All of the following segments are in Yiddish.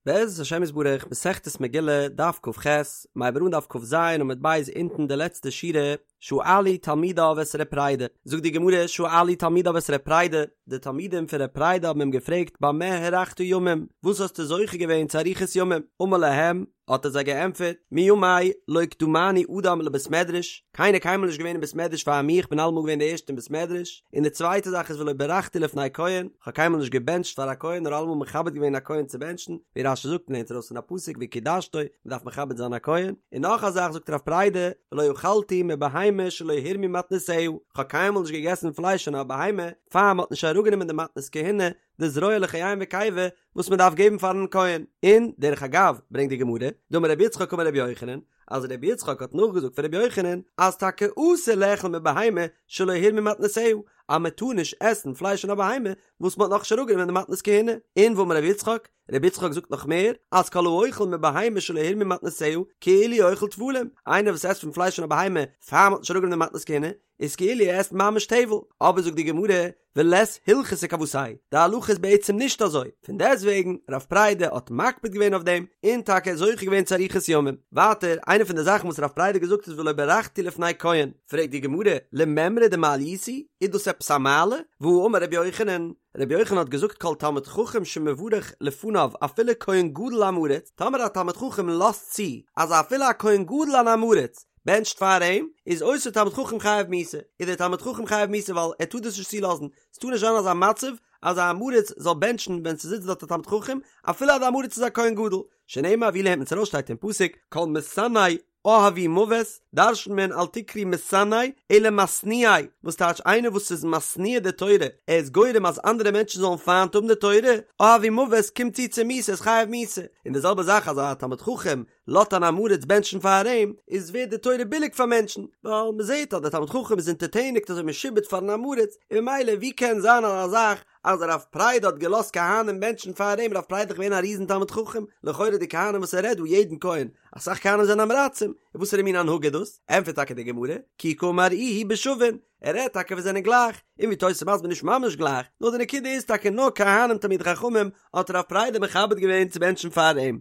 בעזרת השם יתברך, מסכת מגילה, דף כ"ח, מ'הייבט אן דף כ"ז עמוד ב' אונטן די לעצטע שורה, שאלו תלמידיו את ר' פרידא, זאגט די גמרא, שאלו תלמידיו את ר' פרידא, די תלמידים פון ר' פרידא האבן אים געפרעגט במה הארכת ימים, וואס האסטו זוכה געווען צו אריכות ימים? אמר להם, האט ער זיי געענטפערט, מימי לא קדמני אדם לבית מדרש, קיינער קיינמאל נישט געווען אין בית מדרש פאר מיר, איך בין אלעמאל געווען די ערשטע אין בית מדרש, און די צווייטע זאך איז ולא ברכתי לפני כהן, איך האב קיינמאל נישט געבענטשט פאר א כהן נאר אלעמאל מכבד געווען א כהן צו בענטשן, ווי רש"י זאגט און לערנט ארויס פון א פסוק וקדשתו, מען דארף מכבד זיין א כהן, און נאך א זאך זאגט רב פרידא, ולא אכלתי מבהמה שלא הורמו מתנותיה, איך האב קיינמאל נישט געגעסן פלייש פון א בהמה פאר מען האט נישט אראפגענומען די מתנות כהונה, די זרוע לחיים וקיבה וואס מען דארף געבן פארן כהן, און דרך אגב ברענגט די גמרא, דאמר רבי יצחק אמר רבי יוחנן, אז רבי יצחק האט נאכגעזאגט פון רבי יוחנן, אז טאקע אסור לאכול מבהמה שלא הורמו מתנותיה, אז מען טאר נישט עסן פלייש פון א בהמה וואס מען האט נאכנישט אראפגענומען די מתנות כהונה, און ואמר רבי יצחק, רבי יצחק זאגט נאך מער, אז כל האוכל מבהמה שלא הורמו מתנותיה, כאילו אוכל טבלים, איינער וואס עסט פון פלייש פון א בהמה פאר מען האט נישט אראפגענומען די מתנות כהונה, איז כאילו ער עסט ממש טבל, אבער זאגט די גמרא, ולית הלכתא כוותיה, די הלכה איז בעצם נישט אזוי, פון דעסטוועגן, רב פרידא האט מקפיד געווען אויף דעם, און טאקע זוכה געווען צו אריכות ימים. ווייטער, איינע פון די זאכן וואס רב פרידא האט געזאגט איז ולא ברכתי לפני כהן, פרעגט די גמרא, למימרא דמעליותא היא, איז דאס עפעס א מעלה? והאמר רבי יוחנן, רבי יוחנן האט געזאגט כל תלמיד חכם שמברך לפניו אפילו כהן גדול עם הארץ, טאמער א תלמיד חכם לאזט צו אז אפילו א כהן גדול אן עם הארץ בענטשט פאר אים, איז אותו תלמיד חכם חייב מיתה, איז דער תלמיד חכם חייב מיתה ווייל ער טאר דאס נישט צולאזן, ס'טאר נישט זיין אזא מצב אז א עם הארץ זאל בענטשן ווען ס'זיצט דארט א תלמיד חכם, אפילו אז די עם הארץ איז א כהן גדול, שנאמר ווי לערנט מען עס ארויס שטייט אין פסוק כל משנאי אהבו מוות, דרש'נט מען אל תקרי משנאי אלא משניאי, וואס טייטש איינער וואס איז משניא די תורה, ער איז גורם אז אנדערע מענטשן זאלן פיינט האבן די תורה, אהבו מוות קומט צו צו מיתה איז חייב מיתה, און די זעלבע זאך אז א תלמיד חכם לאזט אן עם הארץ בענטשן פאר אים, איז ווערט די תורה ביליג פאר מענטשן, ווייל מען זעט אז דער תלמיד חכם איז אונטערטעניגט אזוי משועבד פארן עם הארץ, און ממילא ווי קען זיין אזא זאך אז רב פרידא האט געלאזט כהנים בענטשן פאר אים, רב פרידא איז דאך געווען א ריזן תלמיד חכם, לכאורה די כהנים וואס ער רעדט דא יעדן כהן, אסאך כהנים זענען עם הארצים, און וואסערע מין הנהגה איז דאס? ענטפערט טאקע די גמרא, כי קאמר איהו בשווין, ער רעדט טאקע וואס זענען גלייך, און ווי תוס' מסביר נישט ממש גלייך, נאר די נקודה איז טאקע נאר כהנים תלמידי חכמים האט רב פרידא מכבד געווען צו בענטשן פאר אים.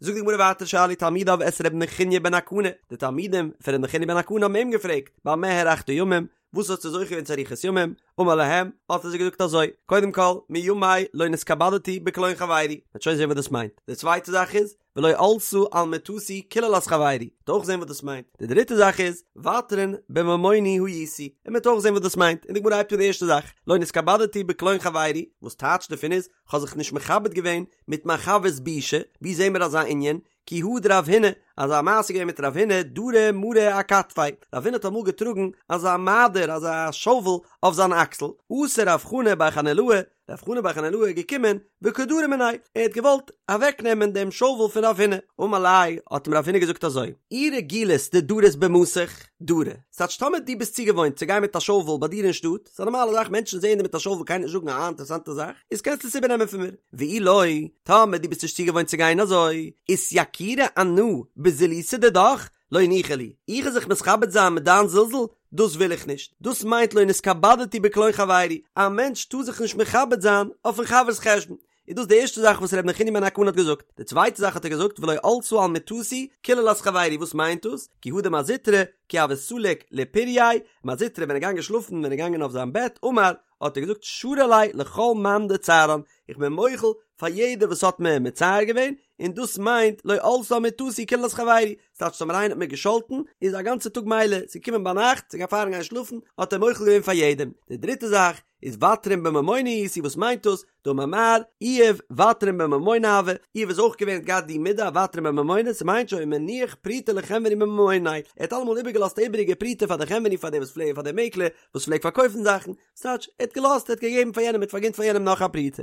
זאגט די גמרא ווייטער שאלו תלמידיו את ר' נחוניא בן הקנה, די תלמידים פון ר' נחוניא בן הקנה האבן אים געפרעגט, במה הארכת ימים, וואס האסטו זוכה געווען צו אריכות ימים, אמר להם, האט ער זיי געזאגט אזוי, קודם כל, מימי לא נתכבדתי בקלון חברי, מ'וועט שוין זען וואס דאס מיינט, די צווייטע זאך איז, ולא עלתה על מטתי קללת חברי, מ'וועט אויך זען וואס דאס מיינט, די דריטע זאך איז, ותרן בממוני הייתי, און מ'וועט אויך זען וואס דאס מיינט, און די גמרא הייבט אן די ערשטע זאך, לא נתכבדתי בקלון חברי, וואס טייטש דערפון איז, כ'האב זיך נישט מכבד געווען מיט מיין חבר'ס בושה, ווי זעהן מיר אזא ענין? כי הא דרב הונא, אזא מעשה געווען מיט רב הונא, דרי מרא אכתפיה, רב הונא האט אמאל געטראגן אזא מעדר, אזא שאוול, אויף זיין אקסל, אתא רב חנא בר חנילאי, רב חנא בר חנילאי איז געקומען, וקא דרי מיניה, ער האט געוואלט אוועקנעמען דעם שאוול פון רב הונא, אמר ליה, האט אים רב הונא געזאגט אזוי, אי רגילת דדרית במתיך, דרי, ס'טייטש טאמער דו ביסט צוגעוואוינט צו גיין מיט א שאוול ביי דיר אין שטאט, ס'איז א נארמאלע זאך מענטשן זעען דיר מיט א שאוול קען נישט זאגן א אינטערעסאנטע זאך, איז קענסטו עס איבערנעמען פון מיר. ואי לא, טאמער דו ביסט נישט צוגעוואוינט צו גיין אזוי, אתייקורי אנא בזילותא דידך, לא ניחא לי, איך וועל זיך מתכבד זיין מיט דיין זלזול, דאס וויל איך נישט, דאס מיינט לא נתכבדתי בקלון חברי, א מענטש טאר זיך נישט מכבד זיין אויפן חבר'ס חשבון, איז דאס די ערשטע זאך וואס ר' נחוניא בן הקנה האט געזאגט, די צווייטע זאך האט ער געזאגט ולא עלתה על מטתי קללת חברי, וואס מיינט דאס? כי הא דמר זוטרא, כי הוה סליק לפורייה, מר זוטרא ווען ער געגאנגען שלאפן ווען ער געגאנגען אויף זיין בעט אמר, האט ער געזאגט שרי ליה לכל מאן דצערן, איך בין מוחל פאר יעדער וואס האט מיר מצער געווען, און דאס מיינט לא עלתה על מטתי קללת חברי, ס'טייטש טאמער איינער האט מיר געשאלטן, איז א גאנצע טאג מילא, ס'איז געקומען ביינאכט, ס'איז פארן גיין שלאפן, האט ער מוחל געווען פאר יעדעם. די דריטע זאך, איז ותרן בממונא הייתי, וואס מיינט דאס? דאמר מר, איוב ותרן בממונא הוה, איוב איז אויך געווען האט געהאט די מידה ותרן בממונא, ס'מיינט שהיה מניח פרוטה לחנווני מממוניה, ער האט אלעמאל איבערגעלאזט א איבעריגע פרוטה פאר די חנווני פאר די וואס פלעגן פאר די מעקלער וואס פלעגט פארקויפן זאכן, ס'טייטש ער האט געלאזט ער האט געגעבן פאר יענעם ער האט פארגינט פאר יענעם נאך א פרוטה.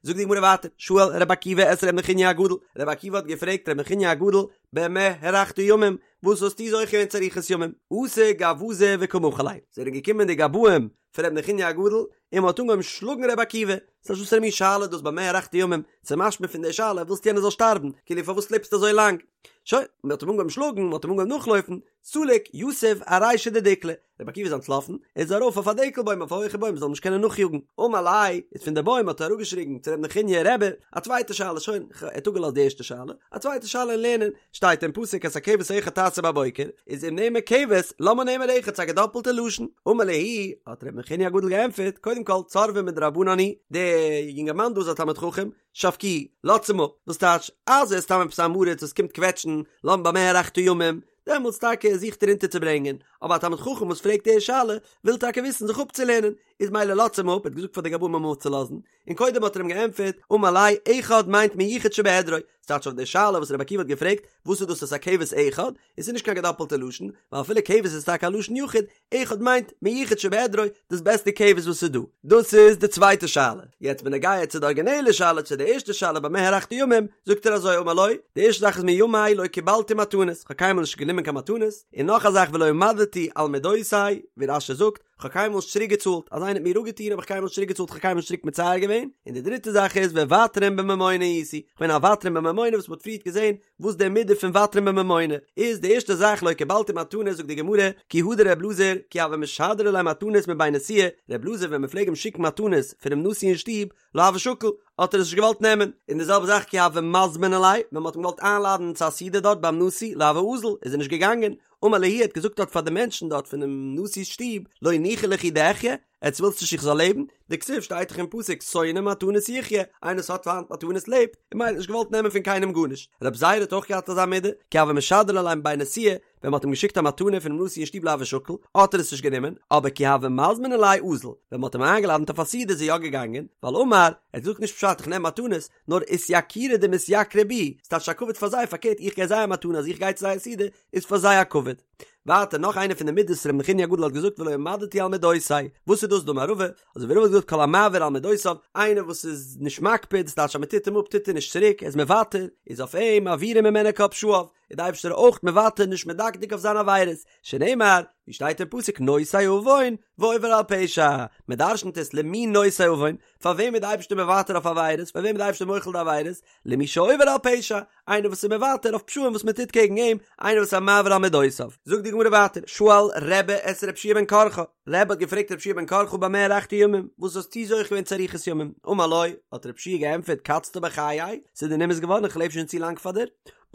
זאגט די גמרא ווייטער, שאל רבי עקיבא את ר' נחוניא הגדול, רבי עקיבא האט געפרעגט ר' נחוניא הגדול, במה הארכת ימים, וואס האסטו זוכה געווען צו אריכות ימים? אתו גווזי וקא מחו ליה, זענען געקומען די גבאים פון ר' נחוניא הגדול. און מען האט אנגעהויבן שלאגן ר' עקיבא, ס'איז וואסערע מין שאלה דאס במה הארכת ימים, ס'איז משמע פון די שאלה ווילסט יענער זאל שטארבן, כאילו פארוואס לעבסטו אזוי לאנג? שוין, מען האט אים אנגעהויבן שלאגן, מען האט אים אנגעהויבן נאכלויפן, סליק יתיב ארישא דדיקלא, רבי עקיבא איז אנטלאפן, ער איז ארויף אויף א דקל בוים אויף א הויכע בוים מ'זאל אים נישט קענען נאכיאגן, אמר ליה, איז פון די בוים האט ער אראפגעשריגן צו רבי נחוניא רבי, א צווייטע שאלה, שוין, ער האט אפגעלאזט די ערשטע שאלה, א צווייטע שאלה אין לערנען, שטייט אין פסוק את הכבש האחד תעשה בבוקר, איז אם נאמר כבש, למה נאמר אחד, ס'איז א געדאפלטע לשון, אמר להו, האט רבי נחוניא הגדול געענטפערט, קודם כל, צורבא מדרבנן הוא, דער יונגערמאן דא איז א תלמיד חכם, שבקוהו, לאזטס אים אפ, וואס טייטש, אז ער איז סתם עפעס אן עם הארץ וואס קומט קוועטשן, למה במה הארכת ימים, דעמאלטס טאקע זוכט ער אונטערצוברענגען, אבער א תלמיד חכם וואס פרעגט די שאלה, וויל טאקע וויסן זיך אפצולערנען, איז מילא לאזטס אים אפ, ער האט געזאגט פאר די גבאים אים אפצולאזן, און קודם האט ער אים געענטפערט, אמר ליה, אחד מיינט מיוחד שבעדרו, ס'טייטש אויף די שאלה וואס רבי עקיבא האט געפרעגט, וואס איז דאס את הכבש אחד, עס איז נישט קיין געדאפלטע לשון, ווייל אפילו כבש איז טאקע א לשון יחיד, אחד מיינט מיוחד שבעדרו, דאס בעסטע כבש וואס איז דא. דאס איז די צווייטע שאלה. יעצט בנוגע צו די ארגינעלע שאלה, צו די ערשטע שאלה במה הארכת ימים, זאגט ער אזוי אמר לו, די ערשטע זאך איז מימי לא קיבלתי מתנות, כ'האב קיינמאל נישט גענומען קיין מתנות, און נאך א זאך ולא עמדתי על מדותי, ווי רש"י זאגט, כ'האב קיינמאל נישט צוריק געצאלט, אז איינער האט מיר אפגעטון האב איך קיינמאל נישט צוריק געצאלט, כ'האב קיינמאל נישט צוריק מצער געווען, און די דריטע זאך איז וותרן בממונא הייתי, כ'בין א ותרן בממונא וואס מ'האט פריערט געזען וואס די מידה פון ותרן בממונא איז, די ערשטע זאך לא קיבלתי מתנות זאגט די גמרא, כי הא דר' אלעזר, כי הוו משדרי ליה מתנות מבי נשיאה, ר' אלעזר ווען מ'פלעג אים שיקן מתנות פונעם נשיא אין שטוב, לא הוה שקיל, האט ער עס נישט געוואלט נעמען, און די זעלבע זאך כי הוו מזמני ליה, ווען מ'האט אים געוואלט איינלאדענען צו א סעודה דארט ביים נשיא, לא הוה אזיל, איז ער נישט געגאנגען, אמר להו האט געזאגט דארט פאר די מענטשן דארט פונעם נשיא'ס שטוב, לא ניחא לכו דאחיה, עטס ווילטס נישט איך זאל לעבן? דכתיב שטייט דאך אין פסוק שונא מתנות יחיה, איינער וואס האט פיינט מתנות לעבט, און מילא האט נישט געוואלט נעמען פון קיינעם גארנישט. רב זירא האט אויך געהאט אזא מידה, כי הוו משדרי ליה מבי נשיאה, ווען מ'האט אים געשיקט א מתנה פונעם נשיא אין שטוב לא הוה שקיל, האט ער עס נישט גענומען, אבער כי הוו מזמני ליה אזיל, ווען מ'האט אים איינגעלאדענט אויף א סעודה איז ער יא געגאנגען, ווייל אמר, ער האט געזאגט נישט פשט איך נעם מתנות, נאר אתייקורי דמתייקרי בי, ס'טייטש א כבוד פאר זיי, פארקערט איך געב זיי א מתנה אז איך גיי צו זייער סעודה, איז פאר זיי א כבוד. ווייטער נאך איינע פון די מידות ר' נחוניא הגדול האט געזאגט ולא עמדתי על מדותי, וואס איז דאס דאמר רבא, אזוי ווי רבא האט געזאגט כל המעביר על מדותיו, איינער וואס איז נישט מקפיד, ס'טייטש אז מ'טוט אים אפ טוט ער נישט צוריק, ער איז מוותר, איז אויף אים מעבירים ממנו כל פשעיו, איז די אייבערשטער אויך מוותר נישט מדקדק אויף זיינע עבירות, שנאמר, ווי שטייט אין פסוק נושא עון ועובר על פשע, מען דרשנ'ט עס למי נושא עון, פאר וועם איז די אייבערשטער מוותר אויף עבירות, פאר וועם איז די אייבערשטער מוחל די עבירות, למי שעובר על פשע, איינער וואס איז מוותר אויף פשעים וואס מען טוט קעגן אים, איינער וואס איז א מעביר על מדותיו. זאגט די גמרא ווייטער, שאל רבי את רבי יהושע בן קרחה, רבי האט געפרעגט רבי יהושע בן קרחה במה הארכת ימים, וואס האסטו זוכה געווען צו אריכות ימים, אמר לו, האט רבי יהושע געענטפערט קצת בחיי, ס'איז דיר נמאס געווארן איך לעב שוין צו לאנג פאר דיר,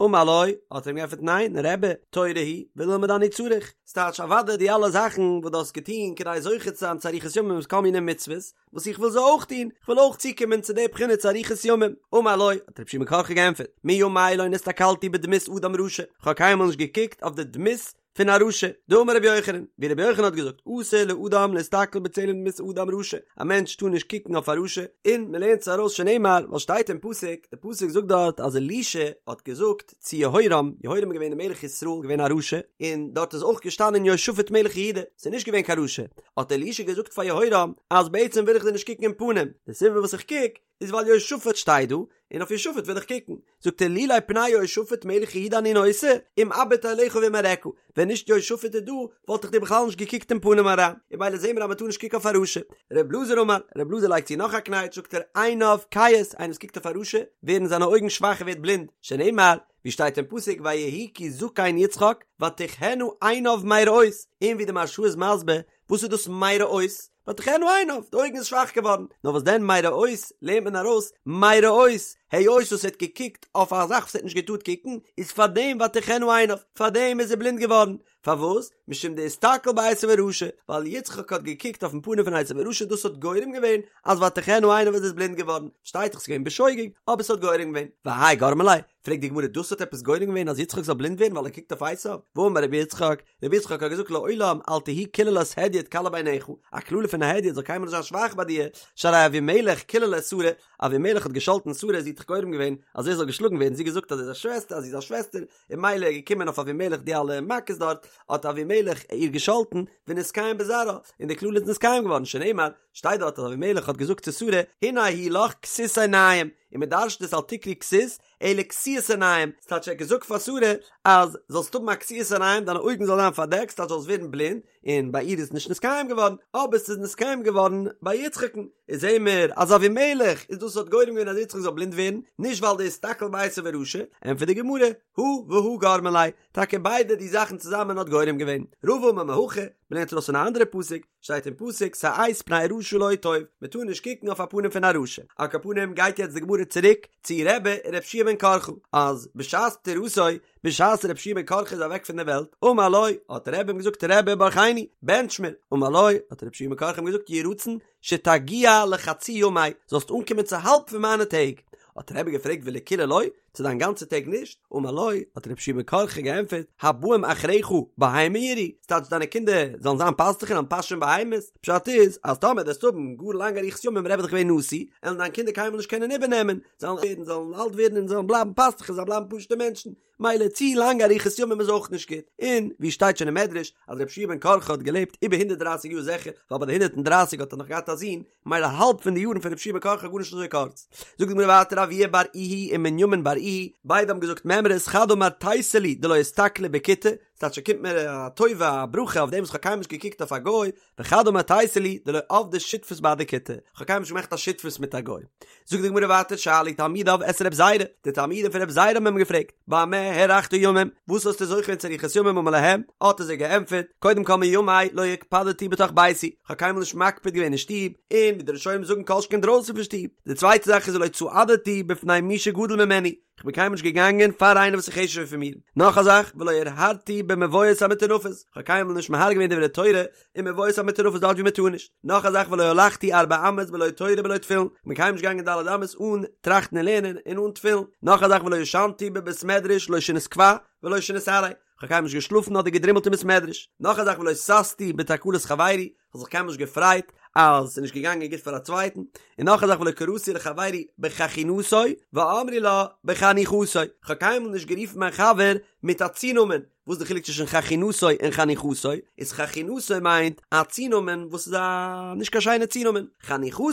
אמר לו, האט ער אים געענטפערט ניין, רבי, תורה היא, וללמוד אני צריך, ס'טייטש אוודאי די אלע זאכן וואס דו האסט געטון כדי זוכה צו זיין צו אריכות ימים איז כל מיני מצוות, וואס איך וויל זיי אויך טון, איך וויל אויך צוקומען צו די בחינה צו אריכות ימים. אמר לו, האט רבי יהושע בן קרחה געענטפערט, מימי לא נסתכלתי בדמות אדם רשע, איך האב קיינמאל נישט געקוקט אויף די דמות פון א רשע, דאמר רבי יוחנן, ווי רבי יוחנן האט געזאגט, אסור לאדם להסתכל בצלם דמות אדם רשע, א מענטש טאר נישט קוקן אויף א רשע, און מען לערנט עס ארויס שנאמר, ווייל שטייט אין פסוק, די פסוק זאגט דארט אז אלישע האט געזאגט צו יהורם, יהורם איז געווען דער מלך ישראל, געווען א רשע, און דארט איז אויך געשטאנען יהושפט מלך יהודה, ס'איז נישט געווען קיין רשע, האט אלישע געזאגט פאר יהורם, אז בעצם וויל איך דיר נישט קוקן אין פנים, די סיבה וואס איך קוק, איז ווייל יהושפט שטייט דא, און אויף יהושפט וויל איך קוקן. זאגט ער לולי פני יהושפט מלך יהודה אני נושא, אם אביט אליך ואם אראך, ווען נישט יהושפט איז דא, וואלט איך דיר בכלל נישט געקוקט אין פנים אריין, און ממילא זעהן מיר אז מען טאר נישט קוקן אויף א רשע. ר' אלעזר אמר, ר' אלעזר לייגט צו נאך א קנייטש, זאגט ער, עיניו כהות, איינער וואס קוקט אויף א רשע, ווערן זיינע אויגן שוואך ער ווערט בלינד, שנאמר, ווי שטייט אין פסוק ויהי כי זקן יצחק ותכהין עיניו מראות, און ווי די מהרש"א איז מסביר, וואס איז דאס מראות? ותכהין עיניו, די אויגן איז שוואך געווארן, נאר וואס דען מראות לערנט מען ארויס מראות, היות וואס ער האט געקוקט אויף א זאך וואס ער האט נישט געטארט קוקן, איז פארדעם ותכהין עיניו, פארדעם איז ער בלינד געווארן, פארוואס? משום דאיסתכל בעשו הרשע, ווייל יצחק האט געקוקט אויפן פנים פון עשו הרשע, דאס האט גורם געווען אז ותכהין עיניו איז ער בלינד געווארן, שטייט דאך ס'איז געווען בשוגג, אבער ס'האט גורם געווען, והאי גרמא ליה, פרעגט די גמרא דאס האט עפעס גורם געווען אז יצחק זאל בלינד ווערן ווייל ער קוקט אויף עשו? והאמר רבי יצחק, רבי יצחק האט געזאגט לעולם אל תהי קללת הדיוט קלה בעיניך, א קללה פון א הדיוט זאל קיינמאל נישט זיין שוואך ביי דיר, שהרי אבימלך קילל את שרה, אבימלך האט געשאלטן שרה, זי האט דאך גורם געווען אז ער זאל געשלאגן ווערן, זי האט געזאגט אז ער איז א שוועסטער אז זי איז א שוועסטער, און ממילא איז געקומען אויף אבימלך די אלע מכות דארט, האט אבימלך איר געשאלטן, ונתקיים בזרעה, און די קללה איז נתקיים געווארן, שנאמר, שטייט דארט אז אבימלך האט געזאגט צו שרה, הנה הוא לך כסות עיניים, און מען דרש'ט עס אל תקרי כסות, אלא כסיית עיניים, ס'טייטש ער האט געזאגט פאר שרה אז זאלסט האבן א כסיית עיניים דיינע אויגן זאלן זיין פארדעקט ס'טייטש זאלסט ווערן בלינד, און ביי איר איז נישט נתקיים געווארן, אבער ס'איז נתקיים געווארן ביי יצחק'ן, איז זעהן מיר אז אבימלך איז דאס וואס האט גורם געווען אז יצחק זאל בלינד ווערן, נישט ווייל דאיסתכל בעשו הרשע, ענטפערט די גמרא, הא והא גרמא ליה, טאקע ביידע די זאכן צוזאמען האט גורם געווען. רבא אמר מהכא, מ'לערנט ארויס פון א אנדערע פסוק, שטייט אין פסוק שאת פני רשע לא טוב, מען טאר נישט קוקן אויף א פנים פון א רשע. על כל פנים גייט יעצט די גמרא צוריק צו רבי און רבי יהושע בן קרחה, אז בשעת פטירתו, בשעת רבי יהושע בן קרחה איז אוועק פון דער וועלט, אמר לו, האט רבי אים געזאגט רבי ברכני, בענטש מיר, אמר לו, האט רבי יהושע בן קרחה אים געזאגט יהי רצון שתגיע לחצי ימי, זאלסט אנקומען צו האלב פון מיינע טעג. האט רבי געפרעגט ולכולהו לא, צו דיין גאנצע טעג נישט? אמר לו, האט רבי יהושע בן קרחה געענטפערט, הבאים אחריך בהמה ירעו, ס'טייטש דיינע קינדער זאלן זיין פאסטוכער און פאשען בהמות, פשט איז, אז טאמער וועסטו האבן גאר לאנגע אריכות ימים רבי איז דאך געווען נשיא, עלן דיין קינדער קיינמאל נישט קענען איבערנעמען, זיי וועלן ווערן, זאלן אלט ווערן און זאלן בלייבן פאסטוכער, זיי בלייבן פשוטע מענטשן, מילא צו לאנגע אריכות ימים איז אויך נישט גוט, און ווי שטייט שוין אין מדרש אז רבי יהושע בן קרחה האט געלעבט איבער הונדערט דרייסיג יאר זיכער, ווייל ביי די הונדערט און דרייסיג האט ער נאך געהאט א זון, מילא האלב פון די יארן פון רבי יהושע בן קרחה גארנישט אזוי קורץ. זאגט די גמרא ווייטער אבוה בר איהי און מנימין בר איהי, ביידע האבן געזאגט מימרות חד אמר תיתי לי דלא אסתכלי בכותי, ס'טייטש ס'קומט מיר א טובה א ברכה אויף דעם וואס כ'האב קיינמאל נישט געקוקט אויף א גוי, וחד אמר תיתי לי דלא עבדי שותפות בהדי כותי, כ'האב קיינמאל נישט געמאכט א שותפות מיט א גוי. זאגט די גמרא ווייטער שאלו תלמידיו את רב זירא, די תלמידים פון רב זירא האבן אים געפרעגט, במה הארכת ימים, וואס האסטו זוכה געווען צו אריכות ימים אמר להם, האט ער זיי געענטפערט, קודם כל מימי לא הקפדתי בתוך ביתי, כ'האב קיינמאל נישט מקפיד געווען אין שטוב, און ווי די ראשונים זאגן כל שכן דרויסן פון שטוב, די צווייטע זאך איז ולא צעדתי בפני מי שגדול ממני, כ'בין קיינמאל נישט געגאנגען פאר איינער וואס איז חשוב'ער פון מיר. נאך א זאך, ולא הרהרתי במבואות המטונפות, כ'האב קיינמאל נישט מהרהר געווען דברי תורה אין מבואות המטונפות דארט ווי מ'טאר נישט. נאך א זאך, ולא הלכתי ארבע אמות בלא תורה בלא תפילין, כ'בין קיינמאל נישט געגאנגען ד' אמות אן טראכטן און לערנען און אן תפילין. נאך א זאך, ולא ישנתי בבית מדרש לא שינת קבע ולא שינת עראי, כ'האב קיינמאל נישט געשלאפן אדער געדרימלט אין בית מדרש. נאך א זאך, ולא ששתי בתקלת חברי, כ'האב זיך קיינמאל נישט געפרייט אז ס'איז נישט געגאנגען גוט פאר א צווייטן, און נאך א זאך ולא קראתי לחברי בחכינתו ואמרי לה בחניכתו, כ'האב קיינמאל נישט גערופן מיין חבר מיט א צונאמען, וואס איז די חילוק צווישן חכינתו און חניכתו? איז חכינתו מיינט א צונאמען וואס איז א נישט קיין שיינע צונאמען, חניכתו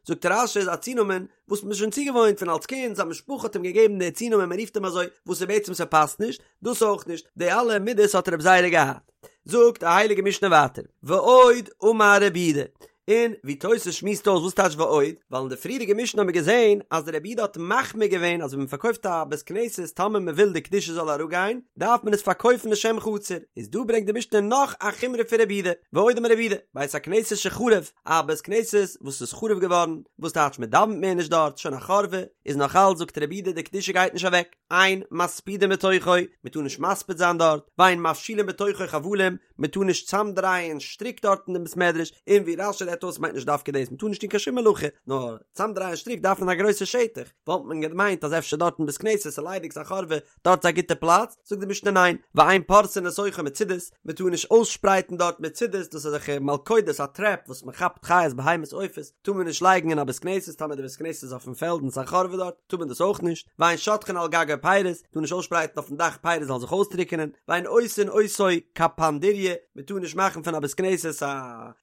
זאגט רש"י איז א צונאמען וואס מ'איז שוין צוגעוואוינט פון אלס קינד, זיין משפחה האט אים געגעבן די צונאמען מ'רופט אים אזוי, וואס איז בעצם ס'פאסט נישט, דאס אויך נישט, די אלע מידות האט רב זירא געהאט. זאגט די הייליגע משנה ווייטער, ועוד אמר רבי יהודה, און ווי תוס' שמועסט אויס וואס טייטש ועוד, ווייל אין די פריערדיגע משנה האבן מיר געזען אז רבי יהודה האט מחמיר געווען אז ווען מען פארקויפט א בית כנסת טאמער מען וויל די קדושה זאל אראפגיין דארף מען עס פארקויפן לשם חצר, איז דא ברענגט די משנה נאך א חומרא פון רבי יהודה, ועוד אמר רבי יהודה, בית הכנסת שחרב, א בית כנסת וואס איז חרוב געווארן, וואס טייטש מען דאווענט מער נישט דארט, שוין א חרבה, איז נאך אלץ זאגט רבי יהודה די קדושה גייט נישט אוועק. אין מספידים בתוכו, מען טאר נישט מספיד זיין דארט, ואין מפשילין בתוכו חבלים, מען טאר נישט צאמדרייען שטריק דארט אין דעם בית מדרש, און ווי רש"י רעדט אויס מיינט נישט דווקא דאס, מען טאר נישט טון קיין שום מלאכה, נאר צאמדרייען שטריק דארף מען א גרויסע שטח, וואלט מען געמיינט אז אפשר דארט אין בית כנסת איז ליידיג ס'א חורבה, דארט איז א גוטע פלאץ, זאגט די משנה ניין, ואין פורסין לתוכו מצודות, מען טאר נישט אויסשפרייטן דארט מצודות, דאס איז אזעלכע מלכודות א טרעפ וואס מען כאפט חיות בהמות עופות, טאר מען נישט לייגן אין א בית כנסת, טאמער די בית כנסת איז אויפן פעלד און ס'איז א חורבה דארט, טאר מען דאס אויך נישט, ואין שוטחין על גגו פירות, טאר נישט אויסשפרייטן אויפן דאך פירות זאלן זיך אויסטריקענען, ואין עושין אותו קפנדריא, מען טאר נישט מאכן פון א בית כנסת א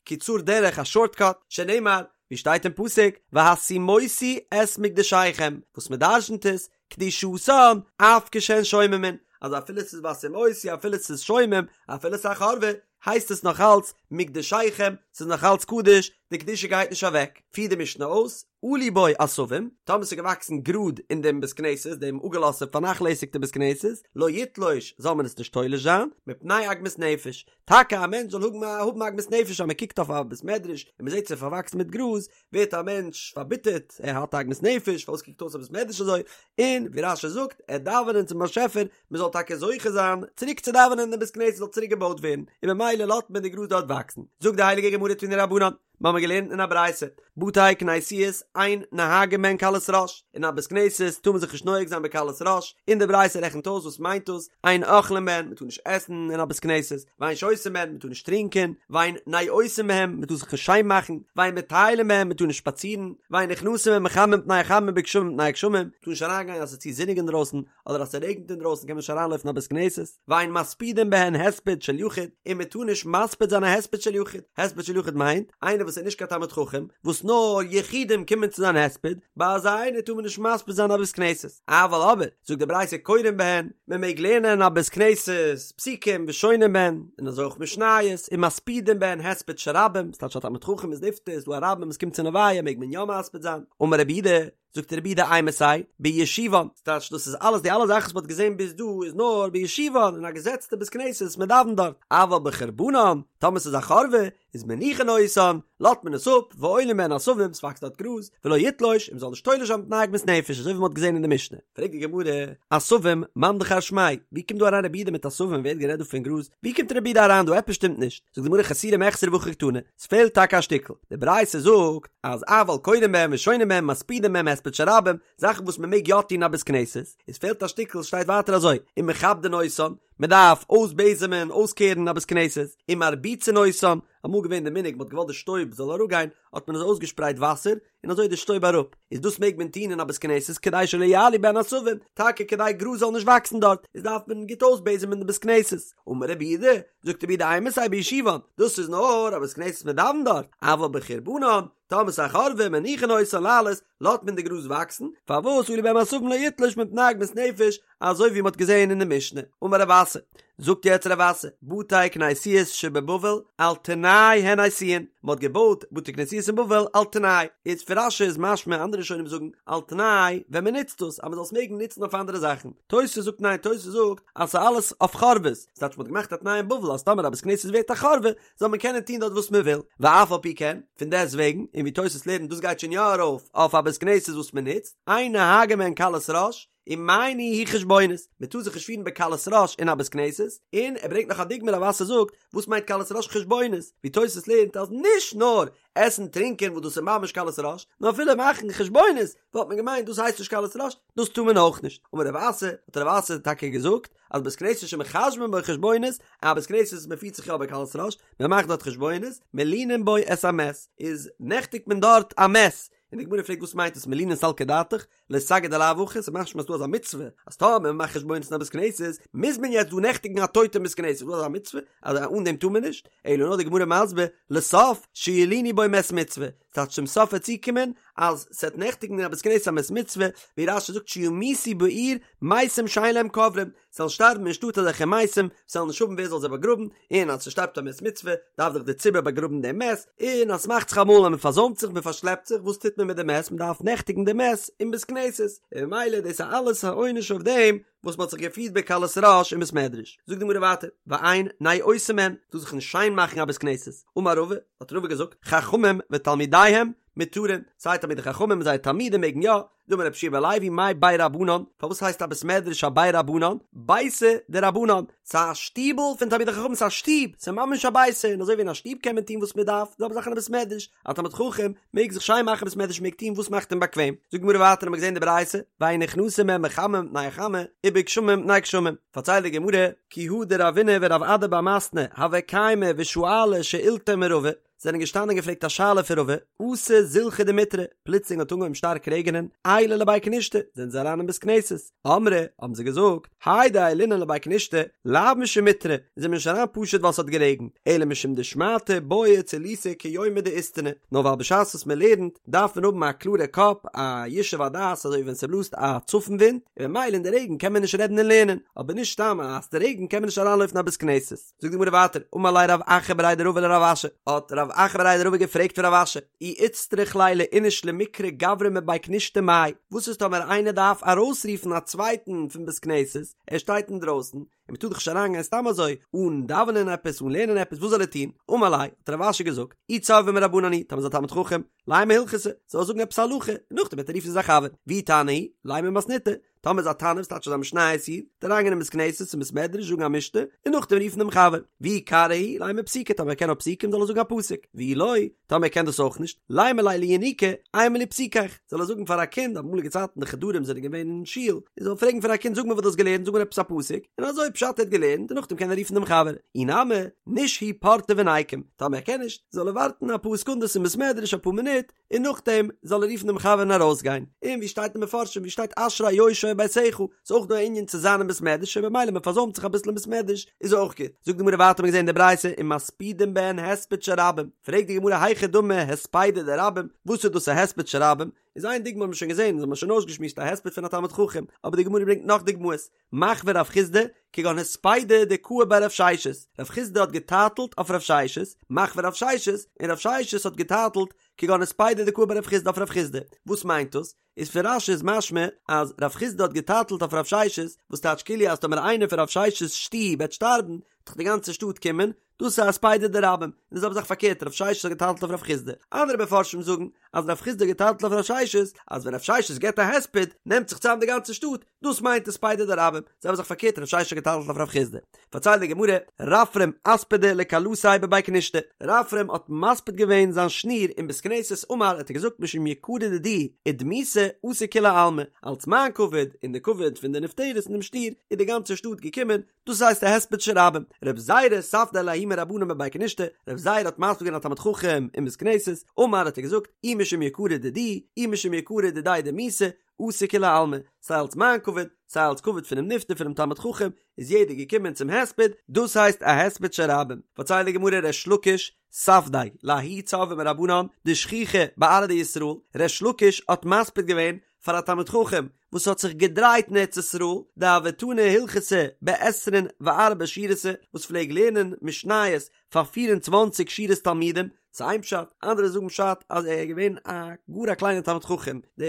קיצור דרך א שארט קאט, שנאמר, ווי שטייט אין פסוק, והשימותי את מקדשיכם, וואס מען דרשנ'ט איז, קדושתן, אף כשהן שוממין, אז אפילו ס'איז והשימותי אפילו ס'איז שומם, אפילו ס'איז א חורבה, הייסט עס נאך אלץ מקדשיכם, ס'איז נאך אלץ קדוש, די קדושה גייט נישט אוועק. פירט די משנה אויס, עלו בו עשבים, טאמער ס'איז געוואקסן גראד אין דעם בית כנסת, דעם אפגעלאזטע פארנאכלעסיגטע בית כנסת, לא יתלוש, זאל מען עס נישט תולש זיין, מפני עגמת נפש. טאקע א מענטש זאל האבן האבן עגמת נפש אז מען קוקט אויף א בית מדרש און מען זעט ס'איז פארוואקסן מיט גראז, ווערט א מענטש פארביטערט, ער האט עגמת נפש, פארוואס קוקט אויס א בית מדרש אזוי, און ווי רש"י זאגט, ער דאווענען צום באשעפער, מען זאל טאקע זוכה זיין צוריק צו דאווענען און די בית כנסת זאל צוריק געבויט ווערן, און ממילא לאזט מען די גראז דארט וואקסן. זאגט די הייליגע גמרא תנו רבנן, מיר האבן געלערנט אין א ברייתא, בתי כנסיות אין נוהגין בהן קלות ראש, אין א בית כנסת טאר מען זיך נישט נוהג זיין בקלות ראש, און די ברייתא רעכנט אויס וואס מיינט דאס, אין אוכלין בהן, מען טאר נישט עסן אין א בית כנסת, ואין שותין בהן, מען טאר נישט טרינקען, ואין נאותין בהם, מען טאר זיך נישט שיין מאכן, ואין מטיילין בהם, מען טאר נישט שפאצירן, ואין נכנסין בהם בחמה מפני החמה ובגשמים מפני הגשמים, מען טאר נישט אריינגיין אז עס איז צו זוניג אינדרויסן, אדער אז ס'רעגנט אינדרויסן קען מען נישט אריינלויפן אין א בית כנסת, ואין מספידין בהן הספד של יחיד, און מען טאר נישט מספיד זיין א הספד של יחיד, הספד של יחיד מיינט, איינער וואס. וואס איז נישט קיין תלמיד חכם, וואס נאר יחידים קומען צו זיין הספד, ביי אזא איינער טאר מען נישט מספיד זיין א בית כנסת. אבל אבער, זאגט די ברייתא קורין בהן, מען מעג לערנען אין א בית כנסת פסוקים ושונין בהן, און אזוי אויך משניות, ומספידין בהן הספד של רבים, ס'טייטש א תלמיד חכם איז נפטר, איז דא א רבים וואס קומט צו לוויה מעג מען יא מספיד זיין. אמר רבי יהודה, זאגט רבי יהודה אימתי, בישובן, ס'טייטש דאס איז אלעס די אלע זאכן וואס מ'האט געזען ביז דא איז נאר בישובן אין א געזעצטע בית כנסת מען דאווענט דארט, אבל בחורבנן, טאמער ס'איז א חורבה, איז מניחין אותן, לאזט מען עס אפ, ועולין בהן עשבים, ס'וואקסט דארט גראז, ולא יתלוש, און מ'זאל נישט תולש זיין מפני עגמת נפש, אזוי ווי מ'האט געזען אין די משנה. פרעגט די גמרא, עשבים, מאן דכר שמיה, ווי קומט דא אריין רבי יהודה מיט עשבים, ווער האט גערעדט דא פון גראז, ווי קומט רבי יהודה אריין דא, עפעס שטימט נישט, זאגט די גמרא חסורי מחסרא והכי קתני, ס'פעלט טאקע א שטיקל, די ברייתא זאגט אז אבל קורין בהם ושונין בהם מספידין בהם הספד של רבים, זאכן וואס מען מעג יא טון אין א בית כנסת, עס פעלט א שטיקל שטייט ווייטער אזוי, ומכבדין אותן, מען דארף אויסבעזעמען, אויסקערן א בית כנסת, ומרביצין אותן, אמאל געווען די מנהג מען האט געוואלט די שטויב זאל אראפגיין האט מען אזוי אויסגעשפרייט וואסער, און אזוי איז די שטויב אראפ, איז דאס מעג מען טון אין א בית כנסת כדי שלא יעלו בהן עשבים, טאקע כדי גראז זאל נישט וואקסן דארט, איז דארף מען גוט אויסבעזעמען די בית כנסת. אמר רבי יהודה, זאגט רבי יהודה אימתי בישובן, דאס איז נאר א בית כנסת מען דאווענט דארט, אבל בחורבנן, טאמער ס'איז א חורבה מניחין אותן לעלות, לאזט מען די גראז וואקסן, פארוואס עלו בהן עשבים לא יתלוש מפני עגמת נפש, אזוי ווי מ'האט געזען אין די משנה. אמר רב אסי, זאגט יעצט רב אסי, בתי כנסיות שבבבל על תנאי הן עשויין, מ'האט געבויט בתי כנסיות אין בבל על תנאי, איז פון רש"י איז משמע אנדערע ראשונים זאגן על תנאי ווען מ'נוצט עס אז מ'זאל עס מעגן נוצן אויף אנדערע זאכן, תוס' זאגט ניין תוס' זאגט אז ס'איז אלעס אויף חורבות, ס'טייטש מ'האט געמאכט א תנאי אין בבל אז טאמער א בית כנסת ווערט א חורבה זאל מען קענען טון דארט וואס מ'וויל, ואף על פי כן, פון דעסט וועגן, און ווי תוס' לערנט דאס גייט שוין יא ארויף אויף א בית כנסת וואס מ'נוצט, אין נוהגין בהן קלות ראש, ומאי ניהו חשבונות, מען טאר זיך נישט פירן בקלות ראש אין א בית כנסת, און ער ברענגט נאך א דוגמא רב אסי זאגט, וואס מיינט קלות ראש חשבונות, ווי תוס' לערנט אז נישט נאר עסן טרינקען וואס דאס איז ממש קלות ראש, נאר אפילו מאכן חשבונות וואלט מען געמיינט דאס הייסט נישט קלות ראש, דאס טאר מען אויך נישט. אמר רב אסי, האט רב אסי טאקע געזאגט, אז בית כנסת שמחשבין בו חשבונות, א בית כנסת וואס מען פירט זיך יא בקלות ראש, מען מאכט דארט חשבונות, מלינין בו את המת, איז נעכטיגט מען דארט א מת, און די גמרא פרעגט וואס מיינט עס מלינין סלקא דעתך, לא סגי דלאו הכי, ס'איז משמע אז דא אזא מצוה, אז טאמער מען מאכט חשבונות אין א בית כנסת, מוז מען יעצט דא נעכטיגן א טויטע אין בית כנסת, איז דא אזא מצוה? אז אן דעם טאר מען נישט? אלא נאר די גמרא מסביר, לסוף, שילינו בו מת מצוה, ס'טייטש צום סוף וועט צוקומען אז ס'וועט נעכטיגן אין א בית כנסת א מת מצוה, ווי רש"י זאגט שימותו בעיר מתים שאין להם קוברים, ס'זאלן שטארבן אין שטאט אזעלכע מתים, ס'זאל נישט האבן ווער זאל זיי באגראבן, און אז ס'שטארבט א מת מצוה, דארף דאך דער ציבור באגראבן דעם מת, און אז ס'מאכט זיך אמאל אז מ'פארזוימט זיך, מ'פארשלעפט זיך, וואס טוט מען מיט די מת? מ'דארף נעכטיגן די מת אין בית כנסת, און ממילא דאס איז אלעס א עונש אויף דעם וואס מ'האט זיך געפירט בקלות ראש אין בית מדרש. זאגט די גמרא ווייטער, ואין נאותין בהן, טאר זיך נישט שיין מאכן א בית כנסת. אמר רבא, האט רבא געזאגט, חכמים ותלמידיהם מותרין, סיי תלמידי חכמים און זייער תלמידים מעגן יא, דאמר רבי יהושע בן לוי מאי בי רבנן, פארוואס הייסט א בית מדרש א בי רבנן? ביתא דרבנן, ס'איז א שטיבל פון תלמידי חכמים, ס'איז א שטוב, ס'איז ממש א ביתא, און אזוי ווי אין א שטוב קען מען טון וואס מען דארף, די זעלבע זאך אין א בית מדרש, א תלמיד חכם מעג זיך שיין מאכן בית מדרש מעג טון וואס מאכט אים באקוועם. זאגט די גמרא ווייטער האמיר געזען די ברייתא, ואין נכנסין בהן בחמה מפני החמה, ובגשמים מפני גשמים, פארציילט די גמרא, כי הא דרבינא ורב אדא בר מתנא הוו קיימי ושאלי שאילתא מרבא, זענען געשטאנען און געפרעגט א שאלה פון רבא, אתא זילחא דמיטרא, פלוצלינג האט אנגעהויבן שטארק רעגענען, עיילו לבי כנישתא, זענען זיי אריין אין בית כנסת, אמרי, האבן זיי געזאגט, האי דעיילינן לבי כנישתא, לאו משום מיטרא, זענען מיר נישט אריין פשוט ווייל ס'האט גערעגנט, אלא משום דשמעתא בעיא צילותא כיומא דאיסתנא, נאר ווייל בשעת וואס מען לערנט, דארף מען האבן א קלארע קאפ, א ישוב הדעת אזוי ווי ווען ס'בלאזט א צפון ווינט, און ממילא אין די רעגן קען מען נישט רעדן און לערנען, אבער נישט סתם אז ס'רעגנט קען מען נישט אריינלויפן אין א בית כנסת. זאגט די גמרא ווייטער, אמר ליה רב אחא בריה דרבא לרב אשי, האט רב אחא בריה דרבא געפרעגט פון רב אשי, אי איצטריך ליה לאיניש למיקרי גברא מבי כנישתא מאי, וואס איז טאמער איינער דארף ארויסרופן א צווייטן פון בית כנסת, ער שטייט אינדרויסן, און מען טאר דאך נישט אריינגיין סתם אזוי, אן דאווענען עפעס, אן לערנען עפעס, וואס זאל ער טון? אמר ליה, האט רב אשי געזאגט, אי צורבא מרבנן הוא, טאמער איז א תלמיד חכם, לימא הלכתא, זאל ער זאגן עפעס א הלכה, און נאכדעם וועט ער רופן זיין חבר, ואי תנא הוא, לימא מתניתא, טאמער איז א תנא וואס טייטש אז א משניות איד, וועט אריינגיין אין בית כנסת און בית מדרש זאגן א משנה, און נאכדעם רופן דעם חבר. ואי קרא הוא, לימא פסוקא, טאמער ער קען נאר פסוקים זאל ער זאגן א פסוק. ואי לא, טאמער ער קען דאס אויך נישט, לימא ליה לינוקא, אימא לי פסוקיך, זאל ער זאגן פאר א קינד, אמאליגע צייטן די חדרים זענען געווען אין שול, און זאל פרעגן פאר א קינד זאג מיר וואס דו האסט געלערנט, זאג מיר עפעס א פסוק, און אזוי פשט ער האט געלערנט, און נאכדעם קען ער רופן דעם חבר. אי נמי, נישהי פורתא וניקום, טאמער ער קען נישט, זאל ער ווארטן אפאר סעקונדעס אין בית מדרש אפאר מינוט, און נאכדעם זאל ער רופן דעם חבר און ארויסגיין, און ווי שטייט אין מפרשים ווי שטייט אשרי יושבי. שהיה בביתך, ס'איז אויך דא א ענין צו זיין אין בית מדרש און במילא מען פארזוימט זיך אביסל אין בית מדרש איז אויך גוט. זאגט די גמרא ווייטער האט מען געזען אין די ברייתא ומספידים בהן הספד של רבים, פרעגט די גמרא היכי דמי הספידא דרבים, וואס איז דאס א הספד של רבים? איז איין דוגמא האט מען שוין געזען, אונז האבן שוין אויסגעשמועסט א הספד פון א תלמיד חכם, אבער די גמרא ברענגט נאך דוגמאות, מחוי רב חסדא, כגון הספידא דקאי ביה רב ששת, רב חסדא האט געטייטלט אויף רב ששת, מחוי רב ששת, און רב ששת האט געטייטלט כגון הספידא דקאי ביה רב חסדא אויף רב חסדא, וואס מיינט דאס? איז פון רש"י איז משמע אז רב חסדא האט געטייטלט אויף רב ששת, וואס טייטש כאילו אז טאמער איינער פון רב ששת'ס שטוב וועט שטארבן, וועט דאך די גאנצע שטאט קומען, דאס איז א הספידא דרבים, און די זעלבע זאך פארקערט רב ששת האט געטייטלט אויף רב חסדא, אנדערע מפרשים זאגן אז רב חסדא האט געטייטלט אויף רב ששת אז ווען רב ששת געבט א הספד נעמט זיך צוזאם די גאנצע שטאט, דאס מיינט הספידא דרבים, זעלבע זאך פארקערט רב ששת האט געטייטלט אויף רב חסדא. פארציילט די גמרא, רפרם אספדיה לכלתיה בבי כנישתא, רפרם האט מספיד געווען זיין שניר אין בית כנסת אמר האט ער געזאגט משום יקרא דידי ודמותי אתו כולי עלמא, אלץ מיין כבוד און די כבוד פון די נפטרת און דעם שניר איז די גאנצע שטאט געקומען, דאס הייסט א הספד של רבים. רב זירא ספדיה לההוא מרבנן בבי כנישתא, רב זירא האט מספיד געווען א תלמיד חכם אין בית כנסת, אמר האט ער געזאגט, אי משום יקרא דידי, אי משום יקרא דידיה דמיתה, אתו כולי עלמא, סיי אלס מיין כבוד, סיי אלס כבוד פונעם נפטר פונעם תלמיד חכם, איז יעדער געקומען צום הספד, דאס הייסט א הספד של רבים. פארציילט די גמרא ריש לקיש, ספדיה, לההוא צורבא מרבנן, דשכיחא בארעא דישראל, ריש לקיש האט מספיד געווען פאר א תלמיד חכם וואס האט זיך געדרייט אין ארץ ישראל, דהוה תני הלכתא בעשרין וארבע שורתא, וואס פלעג לערנען משניות פאר פיר און צוואנציג שורות תלמידים, ס'איז איין פשט, אנדערע זאגן פשט אז ער איז געווען א גאר א קליינער תלמיד חכם, די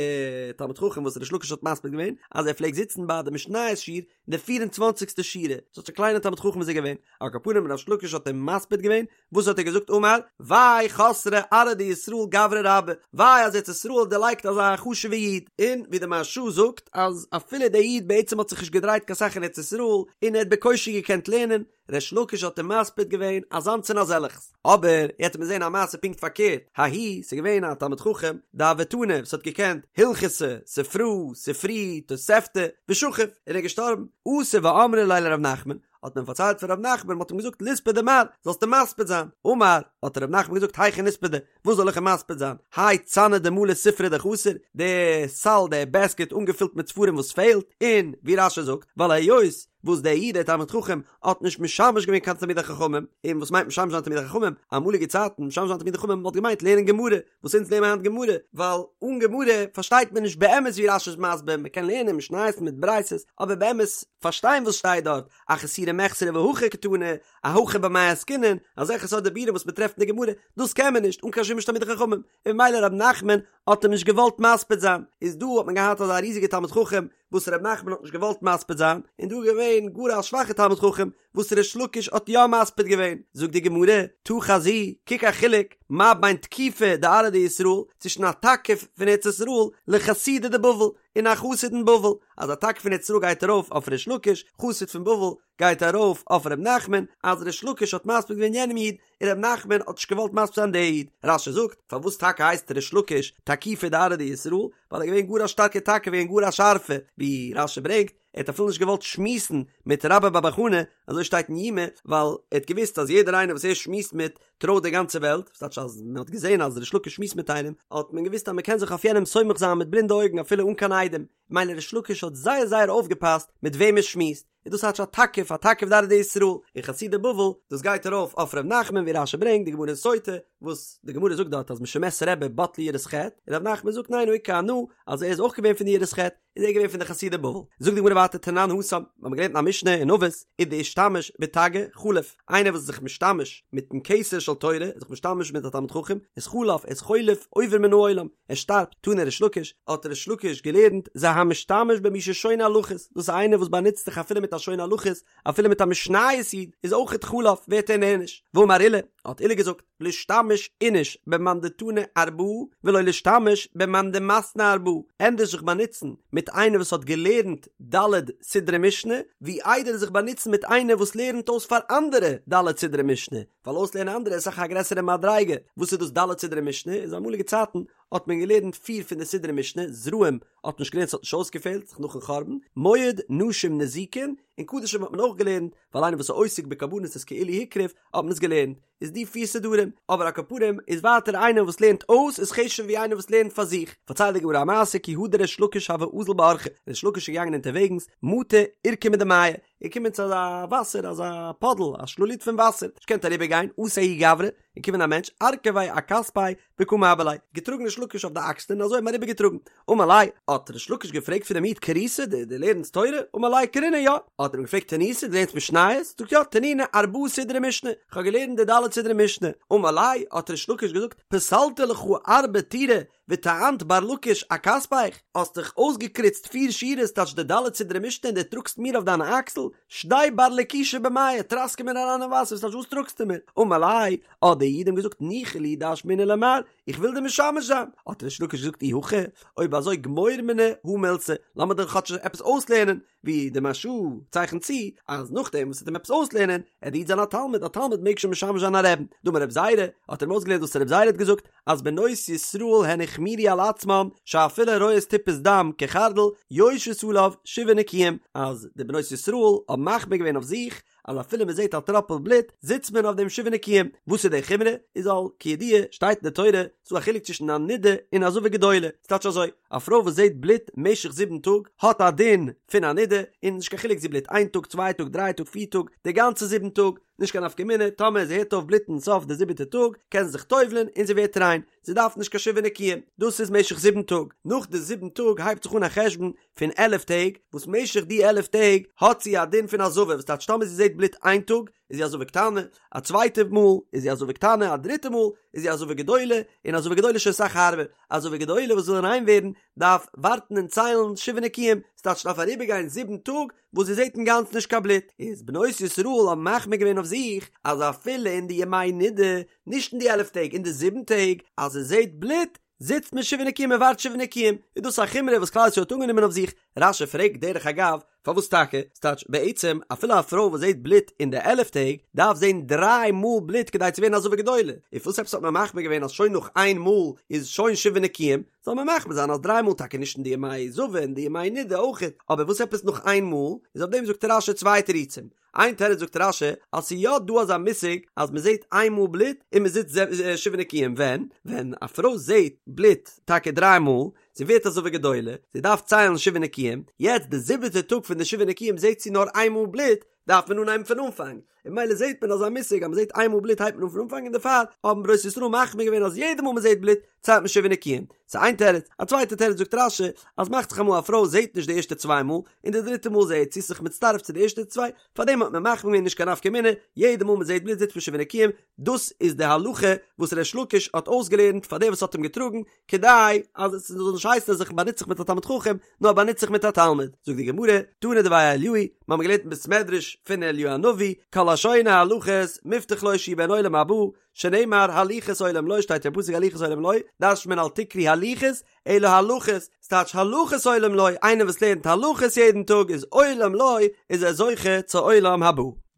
תלמיד חכם וואס ריש לקיש האט מספיד געווען, אז ער פלעגט זיצן ביי די משניות שיעור אין די פיר און צוואנציגסטע שורה, ס'טייטש א קליינער תלמיד חכם איז ער געווען, על כל פנים ריש לקיש האט אים מספיד געווען, וואס האט ער געזאגט אמר, וויי חסרה ארעא דישראל גברא רבה, וויי אז ארץ ישראל האט דערלייגט אזא חשוב'ע איד, און ווי די מהרש"א זאגט אז אפילו דער איד בעצם האט זיך נישט געדרייט קיין סאך אין ארץ ישראל, און ער האט בקושי געקענט לערנען, ריש לקיש האט אים מספיד געווען אזאנס און אזעלעכס. אבער יעצט וועט מען זען א מעשה פונקט פארקערט, ההוא, ס'איז געווען א תלמיד חכם, דהוה תני, וואס האט געקענט הלכתא, ספרא, ספרי, תוספתא, ושכיב, און ער איז געשטארבן, אתו ואמרו ליה לר' נחמן, האט מען פארציילט פאר ר' נחמן, מ'האט אים געזאגט ליספדיה מר, זאלסט אים מספיד זיין, אמר, האט ר' נחמן געזאגט היכי ניספדיה, וואס זאל איך אים מספיד זיין, האי צנא דמלא ספרי דחסר, די סל, די בעסקעט אנגעפילט מיט ספרים וואס פעלט, און, ווי רש"י זאגט, ווייל היות וואס דער איד דער תלמיד חכם האט נישט משמש געווען קיין תלמידי חכמים, און וואס מיינט משמש זיין תלמידי חכמים, אמאליגע צייטן משמש זיין תלמידי חכמים וואלט געמיינט לערנען גמרא, וואס אונז לערנען היינט גמרא, ווייל אן גמרא פארשטייט מען נישט באמת ווי רש"י איז מסביר, מען קען לערנען משניות מיט ברייתות, אבער באמת פארשטיין וואס שטייט דארט, אחסורי מיחסרא והכי קתני, אהכא במאי עסקינן, אזעלכע סארט דיבורים וואס מען טרעפט אין די גמרא, דאס קען מען נישט אן קיין שימוש תלמידי חכמים, און ממילא ר' נחמן האט אים נישט געוואלט מספיד זיין, איז דא האט מען געהאט אזא ריזיגע תלמיד חכם וואס ר' נחמן האט נישט געוואלט מספיד זיין, און דא איז געווען גאר א שוואכע תלמיד חכם וואס ריש לקיש האט יא מספיד געווען, זאגט די גמרא, תא חזי, קוק א חילוק, מה בין תקיפא דארעא דישראל, צווישן א תקיף פון ארץ ישראל, לחסידא דבבל, און א חסיד אין בבל, אז א תקיף פון ארץ ישראל גייט ארויף אויף ריש לקיש, חסיד פון בבל גייט ארויף אויף ר' נחמן, אז ריש לקיש האט מספיד געווען יענעם איד, און ר' נחמן האט נישט געוואלט מספיד זיין די איד. רש"י זאגט, פארוואס טאקע הייסט ריש לקיש תקיפא דארעא דישראל, ווייל ער איז געווען גאר א שטארקע תקיף און גאר א שארפע, ווי רש"י ברענגט, ער האט אפילו נישט געוואלט שמועסן מיט רבה בר בר חנה, אזוי שטייט אין יומא, ווייל ער האט געוואוסט אז יעדער איינער וואס ער שמועסט מיט, טרויט די גאנצע וועלט, וואס טייטש אז מען האט געזען אז ריש לקיש שמועסט מיט איינעם, האט מען געוואוסט אז מען קען זיך אויף יענעם סומך זיין מיט בלינדע אויגן אפילו אן קיין עדים, ממילא ריש לקיש האט זייער זייער אויפגעפאסט מיט וועם ער שמועסט, און דאס טייטש א תקיף, א תקיף דארעא דישראל, און חסידי בבל, דאס גייט ארויף אויף ר' נחמן ווי רש"י ברענגט די גמרא אין סוטה, וואס די גמרא זאגט דארט אז משמת רבי בטלה יראת חטא, און ר' נחמן זאגט ניין הא איכא אנא, אז ער איז אויך געווען פון די יראת חטא, איז ער געווען פון די חסידי בבל. זאגט די גמרא ווייטער תנן התם, מיר האבן געלערנט אין א משנה אין אבות, ודאישתמש בתגא חליף, איינער וואס איז זיך משתמש מיטן כתר של תורה, איז זיך משתמש מיט א תלמיד חכם, איז חלף, איז חולף, עובר מן העולם, ער שטארבט, תנא ריש לקיש, האט ריש לקיש געלערנט, זה המשתמש במי ששונה הלכות, דאס איז איינער וואס באנוצט זיך אפילו מיט א שונה הלכות, אפילו מיט א משניות איד, איז אויכעט חלף, ווערט ער נענש. ואמר עולא, האט עולא געזאגט, לישתמש איניש במאן דתני ארבעה, ולא לישתמש במאן דמתני ארבעה, ענדערש זיך באנוצן מיט איינער וואס האט געלערנט ד' סדרי משנה, ווי איידער זיך באנוצן מיט איינער וואס לערנט אויס פאר אנדערע ד' סדרי משנה, ווייל אויסלערנען אנדערע איז אסאך א גרעסערע מדריגה, וואס איז דאס ד' סדרי משנה? איז אמאליגע צייטן. האט מען געלערנט פיר פון די סדרי משנה, זרעים האט מען נישט געלערנט ס'האט נישט אויסגעפעלט, זיך נאכן חורבן, מועד, נשים, נזיקין, און קדשים האט מען אויך געלערנט, ווייל איינער וואס איז עוסק בקרבנות איז כאילו הקריב, האט מען עס געלערנט. איז די פיר סדרים, אבער על כל פנים איז ווייטער איינער וואס לערנט אויס איז חשוב'ער ווי איינער וואס לערנט פאר זיך, פארציילט די גמרא א מעשה כי הא דריש לקיש הוה אזיל באורחא, ריש לקיש איז געגאנגען אונטערוועגנס, מטא עורקא מדמיא, איז געקומען צו אזא וואסער אזא פאדל א שלולית פון וואסער, נישט געקענט אריבער גיין, אתא ההוא גברא, איז געקומען א מענטש, ארכביה אכתפיה וקא מעבר ליה, געטראגן ריש לקיש אויף די אקסלען און אזוי אים אריבער געטראגן, אמר ליה, האט ריש לקיש געפרעגט פון דעם איד קריתא, דו דו לערנסט תורה? אמר ליה קרינא יא, האט ער אים געפרעגט תניתא, דו לערנסט משניות? זאגט יא, תנינא ארבעה סדרי משנה, איך האב געלערנט די ד' סדרי משנה, אמר ליה, האט ריש לקיש געזאגט, פסלת לך ארבע טורי וטענת בר לקיש אכתפך, האסט דיך אויסגעקריצט פיר שורות טייטש די ד' סדרי משנה און דו טראגסט מיר אויף דיינע אקסל, שדי בר לקישא במיא, טראסקע מיר אריין אין וואסער, וואס טייטש וואס טראגסטו מיר? אמר ליה, האט דער איד אים געזאגט ניחא לי דאשמעינן למר, איך וויל דיר משמש זיין, האט ריש לקיש געזאגט אי הכי, אויב אזוי גמור מיני הא מילתא, לאמיר דיר כאטש עפעס אויסלערנען, ווי די מהרש"א צייכנט צו, אז נאכדעם וואס ער וועט אים עפעס אויסלערנען, עט דער איד זיין א תלמיד, א תלמיד מעג שוין משמש זיין א רעבן, דאמר רב זירא, האט ער אים אויסגעלערנט וואס רב זירא האט געזאגט, אז בנות ישראל הן החמירו על עצמן, שאפילו רואות טיפת דם כחרדל, יושבות עליו שבעה נקיים, אז די בנות ישראל האבן מחמיר געווען אויף זיך, אז אפילו מען זעט א טראפל בלוט זיצט מען אויף דעם שבעה נקיים, וואס איז די חומרא? איז ווייל כידוע שטייט אין די תורה ס'דא א חילוק צווישן א נידה און א זבה גדולה, ס'טייטש אזוי, א פרוי וואס זעט בלוט משך זיבן טאג האט א דין פון א נידה, און נישט קיין חילוק זי בלוט איין טאג צוויי טאג דריי טאג פיר טאג, די גאנצע זיבן טאג, נישט קיין נפקא מינה, טאמער זי הערט אויף בלוטן סוף די זיבעטע טאג קען זי זיך טובל'ן און זי ווערט ריין, זי דארף נישט קיין שבעה נקיים, דאס איז משך זיבן טאג, נאך די זיבן טאג הייבט זיך אן א חשבון פון עלף טעג, וואס משך די עלף טעג האט זי א דין פון א זבה, וואס טייטש טאמער זי זעט בלוט איין טאג איז זי א זבה קטנה, א צווייטע מאל איז זי א זבה קטנה, א דריטע מאל איז זי א זבה גדולה, און א זבה גדולה איז שוין אסאך הארבער, א זבה גדולה וואס וויל ריין ווערן דארף ווארטן און ציילן שבעה נקיים, ס'טייטש ס'דארף אריבערגיין זיבן טאג וואס זי זעט אינגאנצן נישט קיין בלוט, איז בנות ישראל האבן מחמיר געווען אויף זיך אז אפילו אין די ימי נידה, נישט אין די עלף טעג, אין די זיבן טעג, אז זי זעט בלוט, זיצט מען שבעה נקיים און ווארט שבעה נקיים, איז דאס א חומרא וואס כלל ישראל האט אנגענומען אויף זיך? רש"י פרעגט דרך אגב, פארוואס טאקע? ס'טייטש בעצם אפילו א פרוי וואס זעט בלוט אין די עלף טעג, דארף זען דריי מאל בלוט כדי צו ווערן א זבה גדולה, און פארוואס עפעס האט מען מחמיר געווען אז שוין נאך איין מאל איז שוין שבעה נקיים? זאל מען מחמיר זיין אז דריי מאל טאקע נישט אין די ימי זבה אין די ימי נידה אויכעט, אבער וואס עפעס נאך איין מאל? איז אויף דעם זאגט רש"י צוויי תירוצים, איין תירוץ זאגט רש"י אז ס'איז יא דא אזא מושג אז מ'זעט איין מאל בלוט און מ'זיצט שבעה נקיים ווען? ווען א פרוי זעט בלוט טאקע דריי מאל, זי ווערט א זבה גדולה, זי דארף ציילן שבעה נקיים, יעצט די זיבעטע טאג פון די שבעה נקיים זעט זי נאר איין מאל בלוט, דארף מען אנהייבן פון אנפאנג, און ממילא זעט מען אזא מושג אז מ'זעט איין מאל בלוט הייבט מען אן פון אנפאנג און דערפאר האבן בנות ישראל מחמיר געווען אז יעדע מאל מ'זעט בלוט ציילט מען שבעה נקיים. ס'איז איין תירוץ. א צווייטע תירוץ זאגט רש"י אז מאכט זיך אמאל א פרוי זעט נישט די ערשטע צוויי מאל, און די דריטע מאל זעט זי זיך מצטרף צו די ערשטע צוויי, פארדעם האט מען מחמיר געווען נישט קיין נפקא מינה, יעדע מאל מ'זעט בלוט זיצט מען שבעה נקיים, דאס איז די הלכה וואס ריש לקיש האט אויסגעלערנט פאר דער וואס האט אים געטראגן, כדי אז עס זאל נישט הייסן אז איך באנוץ זיך מיט א תלמיד חכם, נאר באנוץ זיך מיט א תלמיד. זאגט די גמרא, תנא דבי אליהו, מיר האבן געלערנט אין בית מדרש פון אליהו הנביא, כל השונה הלכות מובטח לו שהוא בן עולם הבא, שנאמר הליכות עולם לו שטייט אין פסוק הליכות עולם לו, דרש'נט מען אל תקרי הליכות, אלא הלכות, ס'טייטש הלכות עולם לו, איינער וואס לערנט הלכות יעדן טאג איז עולם לו, איז ער זוכה צו עולם הבא.